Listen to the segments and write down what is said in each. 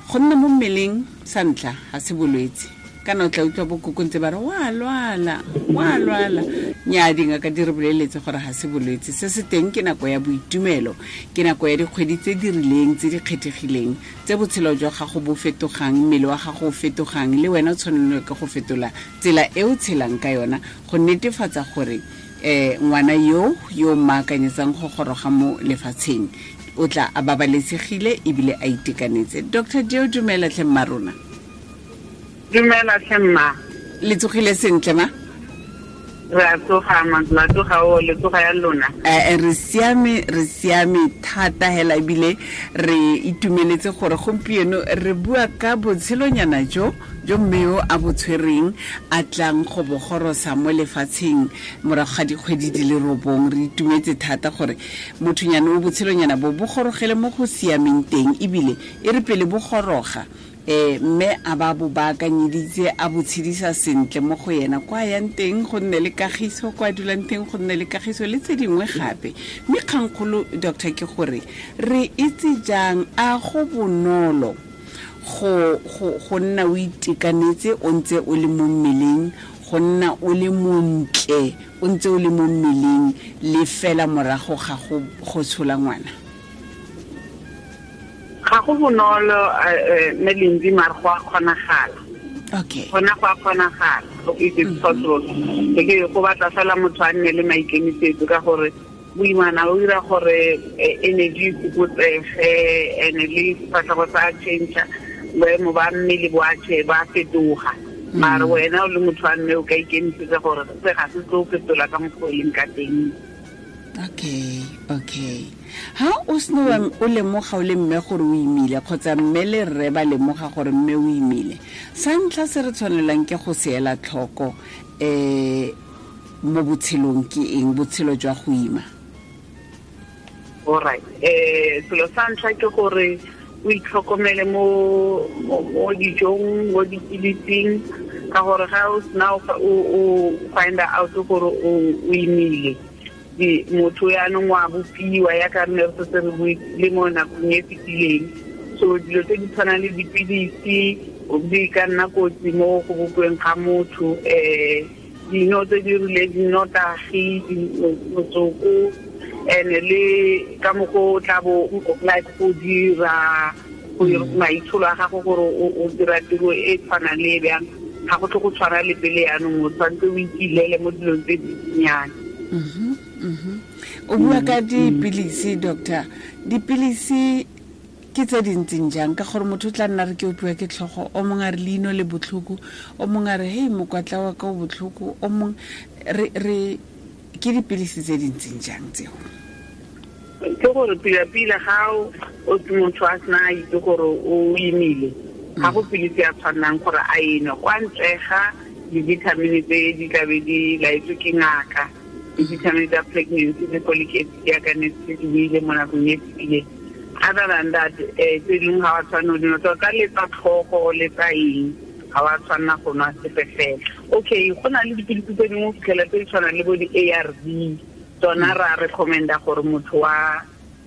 Go nna mo mmeleng sa ntlha ga se bolwetse, kana o tla utlwa bokoko ntse ba re wa lwala, wa lwala. Nnyaa, dingaka di re boleletse gore ga se bolwetse. Se se teng ke nako ya boitumelo, ke nako ya dikgwedi tse di rileng tse di kgethegileng tse botshelo jwa gago bo fetogang, mmele wa gago o fetogang, le wena o tshwanelwa ke go fetola tsela e o tshelang ka yona go netefatsa gore ngwana yo yo mmaakanyetsang go goroga mo lefatsheng o tla a babalesegile ebile a itekanetse. Dr Deo, dumela tlhe mma rona. Dumela tlhe mma. Le tsogile sentle ma? Re a tsoga, ma, la tsoga o, le tsoga ya lona? Re siame, re siame thata hela, ebile re itumeletse gore gompieno re bua ka botshelonyana jo jo mme yo a bo tshwereng a tlang go bogorosa mo lefatsheng morago ga dikgwedi di le 9. Re itumetse thata gore mothonyana o botshelonyana bo bo gorogele mo go siameng teng, ebile e re pele bo goroga mme a ba bo baakanyeditse a bo tshedisa sentle mo go yena kwa yang teng go nne le kagiso, kwa dulang teng go nne le kagiso le tse dingwe gape. Mme kgangkgolo, doctor, ke gore re itse jang a go bonolo go nna o itekanetse o ntse o le mo mmeleng, go nna o le montle o ntse o le mo mmeleng le fela morago ga go tshola ngwana? Ga go bonolo, mme Lindi, mare go a kgonagala. Gona go a kgonagala, it is possible. Ke go batla fela motho a nne le maikemisetso, ka gore boimana o dira gore energy e fokotsege, and le sefatlhego sa change, boemo ba mmele bo a ba fetoga. Mare wena o le motho wa mme o ka ikemisetsa gore se ga se tlo fetola ka mokgwa o leng ka teng. Okay. Ha o seno o lemoga o le mme gore o imile, kgotsa mme le rre ba lemoga gore mme o imile, sa ntlha se re tshwanelang ke go se ela tlhoko mo botshelong ke eng, botshelo jwa go ima? All right. Selo sa ntlha ke gore o itlhokomele mo dijong, mo dipilising, ka gore ga o sena o find out gore o imile, motho yaanong wa bopiwa ya ka nne re setse re buile mo nakong e fetileng. So dilo tse di tshwanang le dipilisi di ka nna kotsi mo go bopiweng ga motho, dino tse di rileng, dinotagi, motsoko, and le ka mokgwa o tla bo like go dira go maitsholo a gago gore o dira tiro e tshwanang le e bjang, ga go tle go tshwana le pele. Yaanong o tshwanetse o ikilele mo dilong tse dinnyane. O bua ka dipilisi, doctor. Dipilisi ke tse di ntseng jang? Ka gore motho o tla nna re ke opiwa ke tlhogo, o mongwe a re leino le botlhoko, o mongwe a re hei mokwatla wa ka o botlhoko, o mongwe re ke dipilisi tse di ntseng jang tseo? Ke gore pila-pila ga o motho a sena a itse gore o imile, ga go pilisi ya tshwannang gore a enwe kwa ntle ga di-vitamin tse di tlabe di laetswe ke ngaka, di-vitamin tsa pregnancy le folic acid yaka ne se di buile mo nakong e fetileng. Other than that, tse dingwe ga wa tshwanela go dinwa, tota le tsa tlhogo le tsa eng ga wa tshwanela go nwa sepe fela. Okay, go na le dipilisi tse dingwe o fitlhela tse di tshwanang le bo di-A R V, tsona ra recommenda gore motho wa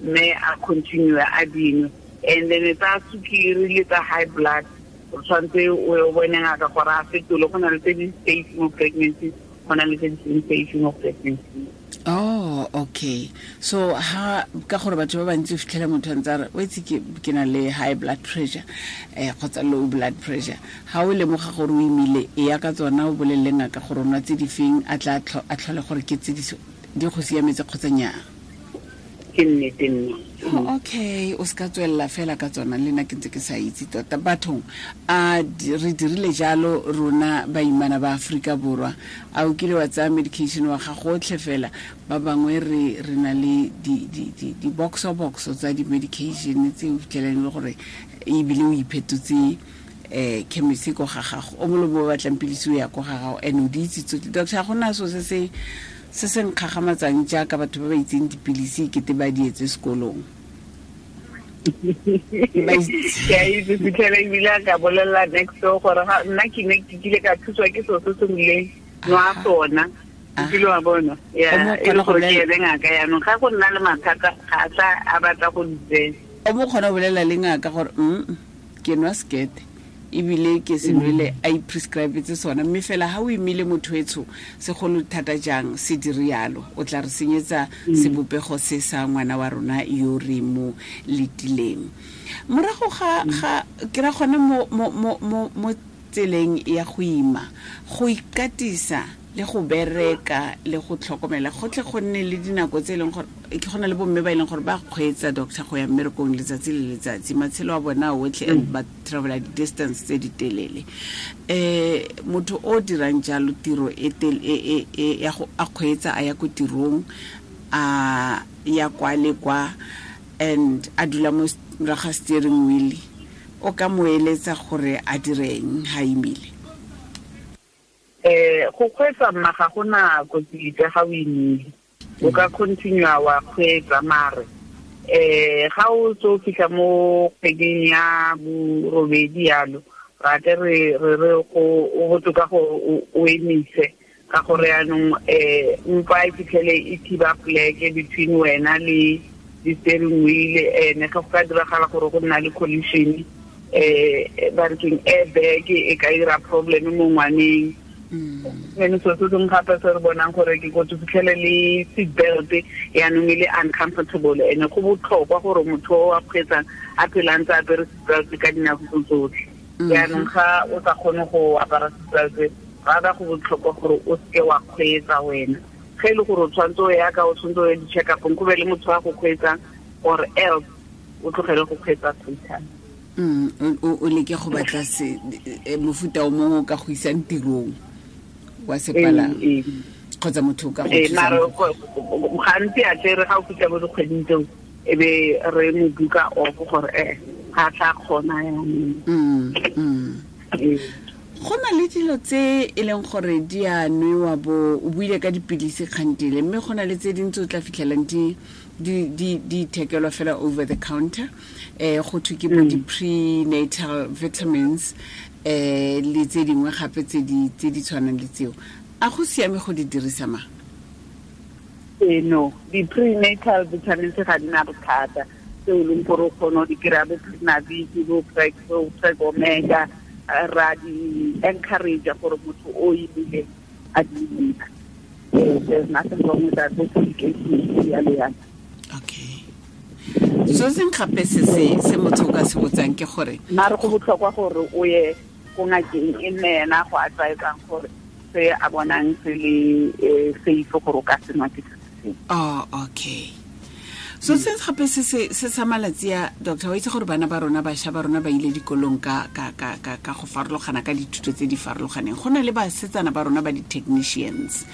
mme a continue a dinwe. And then tsa sukiri le tsa high blood o tshwanetse o bone ngaka gore a fetole. Go na le tse di safe mo pregnancy, go na le tse di seng safe mo pregnancy. Oh, okay. So ha ka gore batho ba bantsi o fitlhela motho a ntse a re o itse ke na le high blood pressure kgotsa low blood pressure, ha o lemoga gore o imile, e ya ka tsona o bolelele ngaka gore o nwa tse di feng, a tla a tlhole gore ke tse di go siametse kgotsa nnyaa. Ke nnete nna. Oh, okay, o se ka tswelela fela ka tsona. Le nna ke ntse ke sa itse tota. Bathong, a re dirile jalo rona baimana ba Aforika Borwa? A o kile wa tsaya medication wa gago otlhe fela? Ba bangwe re na le di-boxo-boxo tsa di-medication tse o fitlhelang e le gore ebile o iphetotse chemist ko ga gago, o molomo o batlang pilisi o ya ko ga gago, and o di itse tsotlhe. Doctor, ga gona so se nkgagamatsang jaaka batho ba ba itseng dipilisi kete ba di etse sekolong. Ke a itse, fitlhela ebile a ka bolelela next door gore nna ke ne ke kile ka thuswa ke selo se se rileng, nwa sona, kile wa bona ya e le gore ke ene ngaka. Yaanong ga go nna le mathata ga a tla a batla go di tsena. O mo kgona go bolela le ngaka gore Ke nwa sekete ebile ke se nwele a iprescribetse sona, mme fela ha o imile motho etsho segolo thata jang se dire yalo, o tla re senyetsa sebopego se sa ngwana wa rona yo re mo letileng. Morago ga ke ra gone mo tseleng ya go ima, go ikatisa le go bereka le go tlhokomela gotlhe, go nne le dinako tse e leng gore ke gona le bomme ba e leng gore ba kgweetsa doctor go ya mmerekong letsatsi le letsatsi, matshelo a bona otlhe, and ba travela di-distance tse di telele. Motho o dirang jalo tiro e ya go a kgweetsa a ya ko tirong, a ya kwa le kwa, and a dula mo morago ga steering wheel, o ka mo eletsa gore a direng ha imile? Go kgweetsa mma ga gona kotsi epe ga o imile, o ka continue wa kgweetsa, mare ga o tso fitlha mo kgweding ya borobedi yalo, ra tle re re go o botoka gore o emise, ka gore yaanong mpa e fitlhele e thiba pleke between wena le di-steering wheel, ene ga go ka diragala gore go nna le collision, ba re keng airbag e ka ira problem mo ngwaneng. Ene so se sengwe gape se re bonang gore ke kotsi, fitlhele le seat belt yaanong e le uncomfortable, ene go botlhokwa gore motho o a kgweetsang a phela ntse a apere seat belt ka dinako tse tsotlhe. Yaanong ga o sa kgone go apara seat belt, rather go botlhokwa gore o seke wa kgweetsa wena. Ge e le gore o tshwanetse o ya ka o tshwanetse o ye di-check-upong, go be le motho wa go kgweetsang, or else o tlogele go kgweetsa total. O leke go batla se mofuta o mongwe o ka go isang tirong wa sepalangwa, kgotsa motho o ka go thusang. Mare gantsi a tle re ga o fitlha mo dikgweding tseo, e be re mo buka off gore ga tla kgona yanong. Go na le dilo tse e leng gore di a nwewa, bo o buile ka dipilisi kgantele, mme go na le tse dintsi o tla fitlhelang di ithekelwa fela over the counter, go thwe ke bo di-prenatal vitamins, le tse dingwe gape tse di tshwanang le tseo. A go siame go di dirisa ma? No, di-prenatal vitamins ga di na bothata, tse o leng gore o kgone go di kry-a bo Prenavit, bo Preg Omega, ra di encourage gore motho o imile a di nka. There's nothing wrong with that, bo folic acid yalo yalo. Okay. So seng gape se se motho o ka se botsang ke gore mare go botlhokwa gore o ye ko ngakeng e nne ena go advisang gore se a bonang se le safe gore o ka se nwa ke se sengwe. Oh, okay. So se gape se sa malatsi a doctor, wa itse gore bana ba rona, bašwa ba rona ba ile dikolong ka go farologana, ka dithuto tse di farologaneng. Go na le basetsana ba rona ba di-technicians,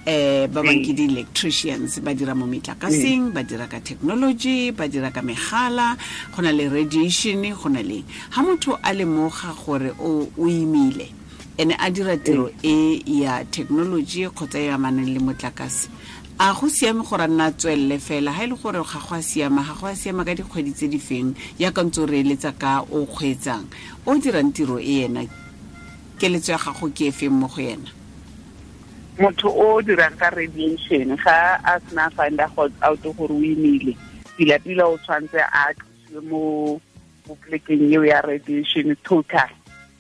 ba bang ke di-electricians, ba dira mo metlakaseng, ba dira ka technology, ba dira ka megala, go na le radiation, go na le ha motho a lemoga gore o imile ene a dira tiro e ya technology kgotsa e amanang le motlakase, a go siame gore a nna tswelele fela? Ha e le gore ga go a siama, ga go a siama ka dikgwedi tse di feng, yaka ntse o re eletsa ka o kgweetsang o dirang tiro e ena, keletso ya gago ke e feng mo go ena? Motho o dirang ka radiation ga a sena find out gore o imile, pila-pila o tshwanetse a tlosiwe mo polekeng eo ya radiation total,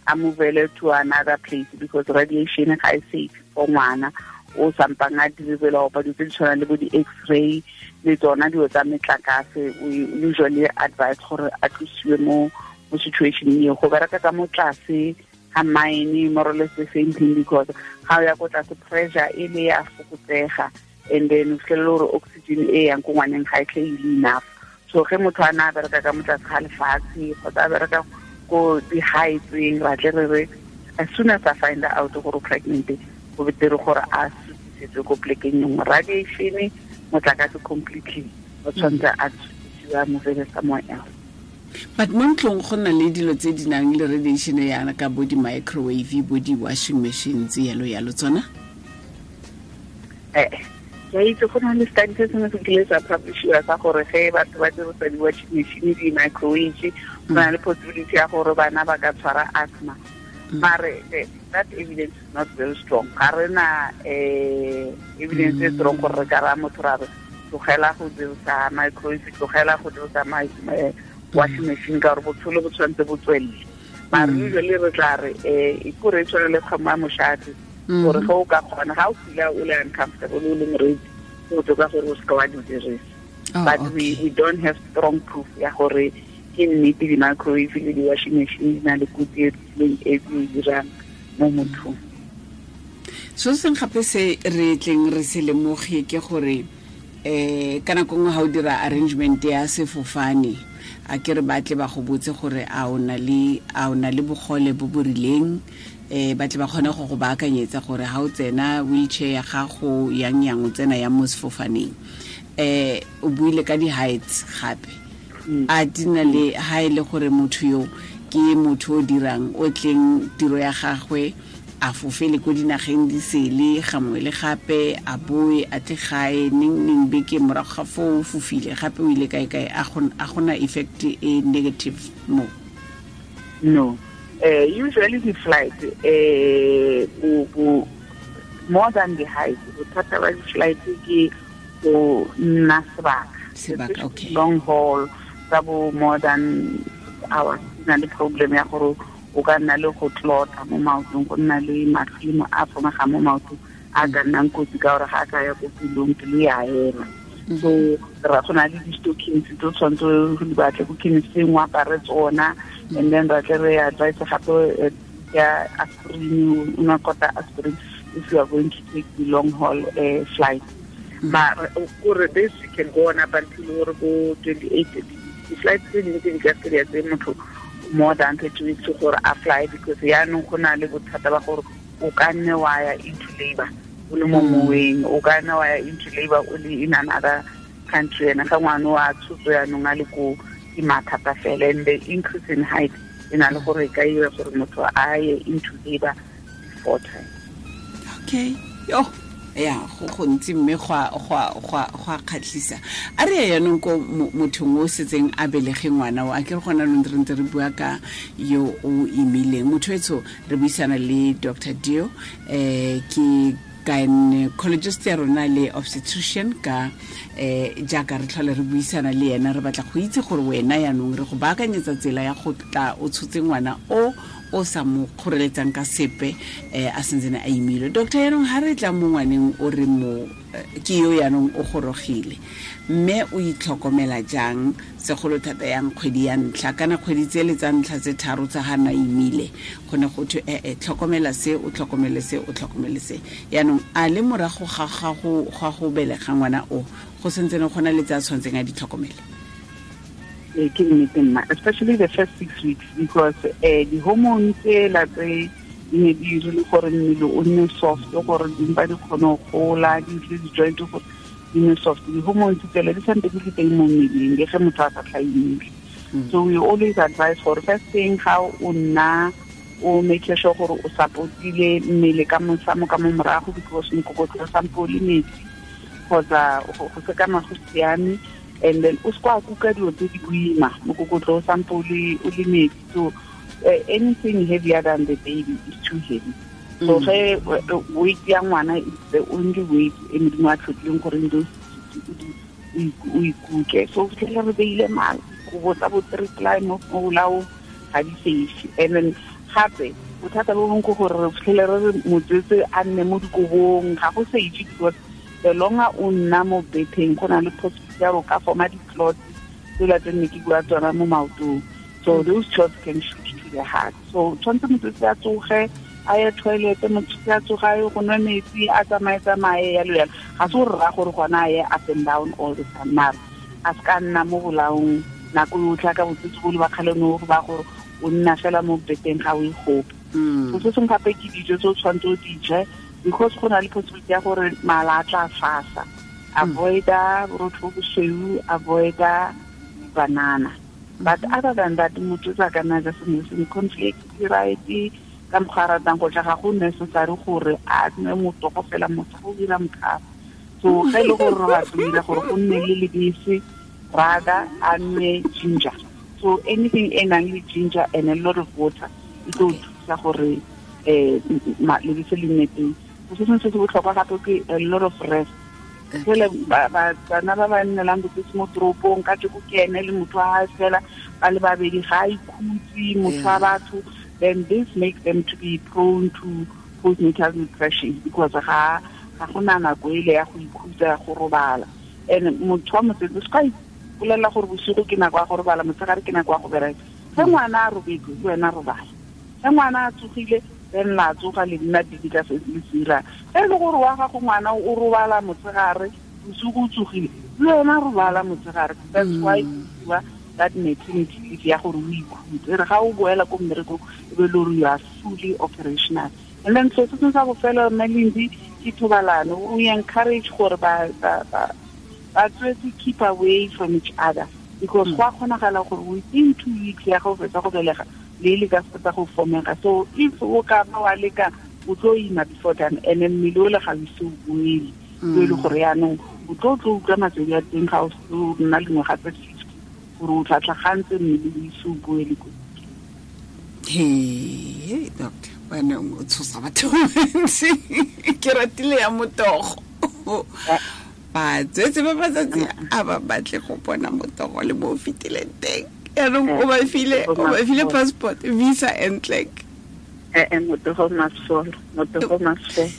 a movele to another place, because radiation ga e safe for ngwana o sampang a deliver opa dilo tse di tshwanang le bo di-x-ray le tsona dilo tsa metlakase. We usually advise gore a tlosiwe mo situation eo. Go bereka ka mo tlase ga mine, more or less the same thing, because ga o ya ko tlase pressure e le ya fokotsega, and then o fitlhelele gore oxygen e yang ko ngwaneng ga e tle e le enough. So ge motho a na a bereka ka mo tlase ga lefatshe kgotsa a bereka ko di-heightseng, ra tle re re as soon as I find out gore o pregnant, go betere gore a sutisetswe ko polekeng e nngwe. Radiation motlakase completely o tshwanetse a sutisiwe, a movele somewhere else. But mo ntlong go na le dilo tse di nang le radiation yana ka bo di-microwave, bo di-washing machines, yalo yalo tsona? Ke itse go na le study se sengwe se kile sa publishiwa sa gore ge batho ba dirisa di-washing machine, di-microwave, go na le possibility ya gore bana ba ka tshwara asthma. Mare that evidence is not very strong. Ga re na evidence e strong gore re ka raya motho ra re tlogela go dirisa microwave, tlogela go dirisa Washing machine ka gore botshelo bo tshwanetse bo tswelele. Mare usually re tla re e kore e tshwane le kgomo ya moshate, gore ge o ka kgona, ga o feel o le uncomfortable o le moreetsi, go botoka gore o seka wa di dirisa. But we don't have strong proof ya gore ke nnete di-microwave le di-washing machine di na le kotsi e rileng e e dirang mo mothong. So seng gape se re tleng re se lemoge ke gore ka nako nngwe ga o dira arrangement ya sefofane, a ke re batle ba go botse gore a o na le bogole bo bo rileng, ba tle ba kgone go go baakanyetsa gore ga o tsena wheelchair ya gago yang yang o tsena yang mo sefofaneng. O buile ka di-heights gape, a di na le ha e le gore motho yo ke motho o dirang o tleng tiro ya gagwe a fofele ko dinageng di sele gangwe le gape, a boe a tle gae neng neng beke morago ga foo o fofile gape o ile kae kae, a gona effect e negative mo? No. Usually the flight more than the height, bothata ba di-flight ke go nna sebaka, okay. Long haul tsa bo more than hours na le problem ya gore o ka nna le go tlota mo maotong, go nna le matlhimo a fomegang mo maotong a ka nnang kotsi ka gore ga a ka ya ko pelong, pelo ya ema. So ra go na le di-stockings tse o tshwanetse go di batle ko chemisteng o apare tsona, and then ra tle re advise gape ya aspirin, o nwa kota aspirin if you are going to take the long haul flight. But gore this can go on up until gore bo 28, di-flight tse dingwe tse di ka se di tse motho more than 30 weeks gore a fly, because yaanong go na le bothata ba gore o ka nne wa ya into labor o le mo moweng, o ka nne wa ya into labor o le in another country, ene ga ngwana wa tshotso yaanong a le ko ke mathata fela. And the increase in height e na le gore e ka ira gore motho a ye into labor before time. Okay, yo ya go gontsi mme go a kgatlhisa. A re ya yanong ko mothong o setseng a belege ngwana o, a ke re gona lo ntse re bua ka yo o imileng. Motho etsho re buisana le Dr. Dio, ke gynecologist ya rona le obstetrician ka jaaka re tlhole re buisana le yena, re batla go itse gore wena yanong re go baakanyetsa tsela ya go tla o tshotse ngwana o sa mo kgoreletsang ka sepe, a sentsene a imile. Doctor, yanong ha re tla mo ngwaneng o re mo ke yo yanong o gorogile, mme o itlhokomela jang segolo thata yang kgwedi ya ntlha kana kgwedi tse le tsa ntlha tse tharo tsa ga na imile, go ne go thwe tlhokomela se, o tlhokomele se, o tlhokomele se. Yanong a le morago ga go belega ngwana o, go sentsene go na le tse a tshwanetseng a di tlhokomele? Ke nnete mma, especially the first 6 weeks, because di-hormone tsela tse di ne di dirile gore mmele o nne soft, gore dimpa di kgone go gola, di tle di-joint gore di nne soft. Di-hormone tsela di santse di le teng mo mmeleng le ge motho a sa tla imile. So we always advise gore first thing ga o nna o make sure gore o support-ile mmele ka mosamo ka mo morago, because mokokotlo o sampo o le metsi kgotsa go sekama go siame. And then o se kwa kuka dilo tse di boima, mokokotlo o sampo o le metsi. So anything heavier than the baby is too heavy. So ge weight ya ngwana is the only weight e Modimo a tlhotlileng gore ndo o ikuke. So fitlhela re beile kobo tsa bo three ply mo bolaong ga di safe. And then gape bothata bo bongwe ke gore re fitlhele re re motswetse a nne mo dikobong, ga go safe because the longer o nna mo betheng go na le possibility ya go ka forma di-clots tsela tse nne ke bua tsona mo maotong. So those clots can shoot to the heart. So tshwanetse motswetse a tsoge a ye toilet, motswetse a tsoge a ye go nwa metsi, a tsamaye-tsamaye yalo yalo. Ga se gore raya gore gona a ye up and down all the time, mara a se ka nna mo bolaong nako yotlhe ka botswetse bo le ba kgale no ba gore o nna fela mo beteng ga o e gope. So se sengwe gape ke dijo tse o tshwanetse o di je, because go na le possibility ya gore mala a tla fasa. Avoid-a borotho bo bosweu, avoid-a banana. But other than that, motho o ka nna ja sengwe le sengwe, cornflakes di right, ka mokgwa a ratang go ja, ga go necessary gore a nwe motogo fela, motho go dira mokhaba. So ge e le gore re batla go dira gore go nne le lebese, rather a nwe ginger. So anything e nang le ginger and a lot of water e tlo thusa gore lebese le nne teng. Se sengwe se se botlhokwa gape ke a lot of rest. Fela bana ba ba nnelang botsotsi mo toropong ka tjeko ke ene le motho wa hae fela ba le babedi ga a ikhutse motho wa batho, then this makes them to be prone to postnatal depression because ga gona nako ele ya go ikhutsa, ya go robala. And motho wa mosetse se ka ipolelela gore bosigo ke nako ya go robala, motshegare ke nako ya go bereka. Ge ngwana a robetse, le wena robala. Ge ngwana a tsogile, then la tsoga le nna busy ka se le se dirang. Ge e le gore wa gago ngwana o robala motshegare, bosigo o tsogile, le wena robala motshegare. That's why bua that maternity leave ya gore o ikhutse. E re ga o boela ko mmerekong, e be le gore you are fully operational. And then so se sa bofelo, mme Lindy, ke thobalano. We encourage gore ba tswetse keep away from each other, because go a kgonagala gore within 2 weeks ya go fetsa go belega le le ka fetsa go fomega. So if o ka ba wa leka, o tlo ima before time, and then mmele o le ga o ise o boele. So e le gore yaanong o tlo utlwa matswedi a teng ga o nna le ngwaga tse 50, gore o tla tlhagantse mmele o ise o boele ko. Hey, doctor, wena o tshosa batho bantsi. Ke ratile ya motogo. Batswetse ba matsatsi a ba batle go bona motogo le mo o fetileng teng. Yaanong o ba file passport, visa and clerk. Motogo must fall, motogo must fall.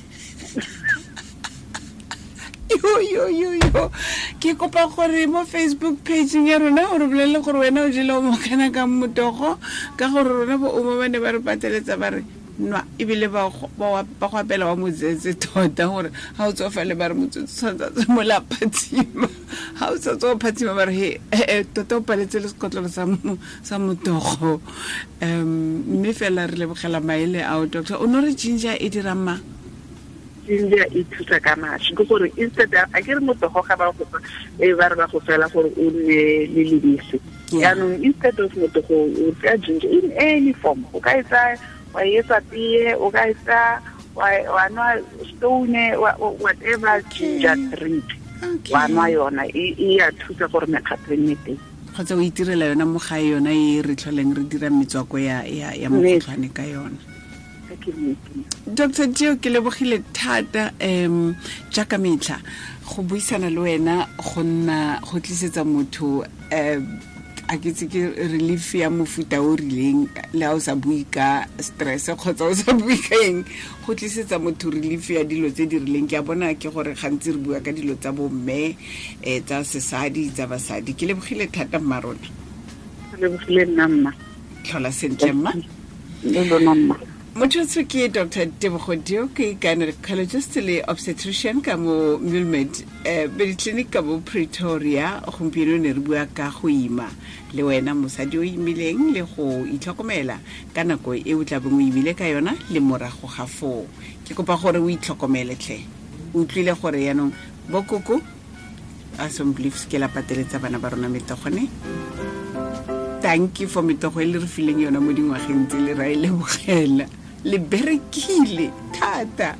Yo. Ke kopa gore mo Facebook page ya rona o re bolelele gore wena o jele o mokana ka motogo, ka gore rona bo ouma ba ne ba re pateletsa ba re nwa, ebile ba go apela wa motsetse tota, gore ga o tsofale ba re motsetse tshwanetse a tswe mo la phatsima. Ga o sa tswa o phatsima ba re, he, tota o paletse le sekotlolo sa motogo. Mme fela re lebogela maele ao, doctor. O no re ginger e dirang mang? Ginger e thusa ka mašwi, ke gore instead a ke re motogo ga ba go fa, e ba re ba go fela gore o nne le lebese. Jaanong instead of motogo, o tsaya ginger in any form. O ka e tsaya wa e etsa tee, o ka e tsaya wa nwa stone, whatever ginger drink. Wa nwa yona, e ya thusa gore mekgatlo e nne teng. Kgotsa o itirela yona mo gae, yona e re tlholeng re dira metswako ya mokgotlhwane ka yona. Doctor Dio, ke lebogile thata, jaaka metlha go buisana le wena go nna go tlisetsa motho, a ke tse ke relief ya mofuta o rileng, le ha o sa bue ka stress kgotsa o sa bue ka eng, go tlisetsa motho relief ya dilo tse di rileng. Ke a bona ke gore gantsi re bua ka dilo tsa bomme, tsa sesadi, tsa basadi. Ke lebogile thata mma rona. Ke lebogile nna mma. Tlhola sentle mma. Le lona mma. Motho ke Doctor Tebogo Dio, ke gynecologist le obstetrician ka mo Muelmed, Mediclinic ka mo Pretoria. Gompieno ne re bua ka go ima le wena mosadi o imileng le go itlhokomela ka nako e o tla beng o imile ka yona le morago ga foo. Ke kopa gore o itlhokomele tlhe. O utlwile gore yaanong bokoko a some beliefs ke la pateletsa bana ba rona metogone. Thank you for metogo e le re fileng yona mo dingwageng tse le ra e lebogela. Le berekile thata.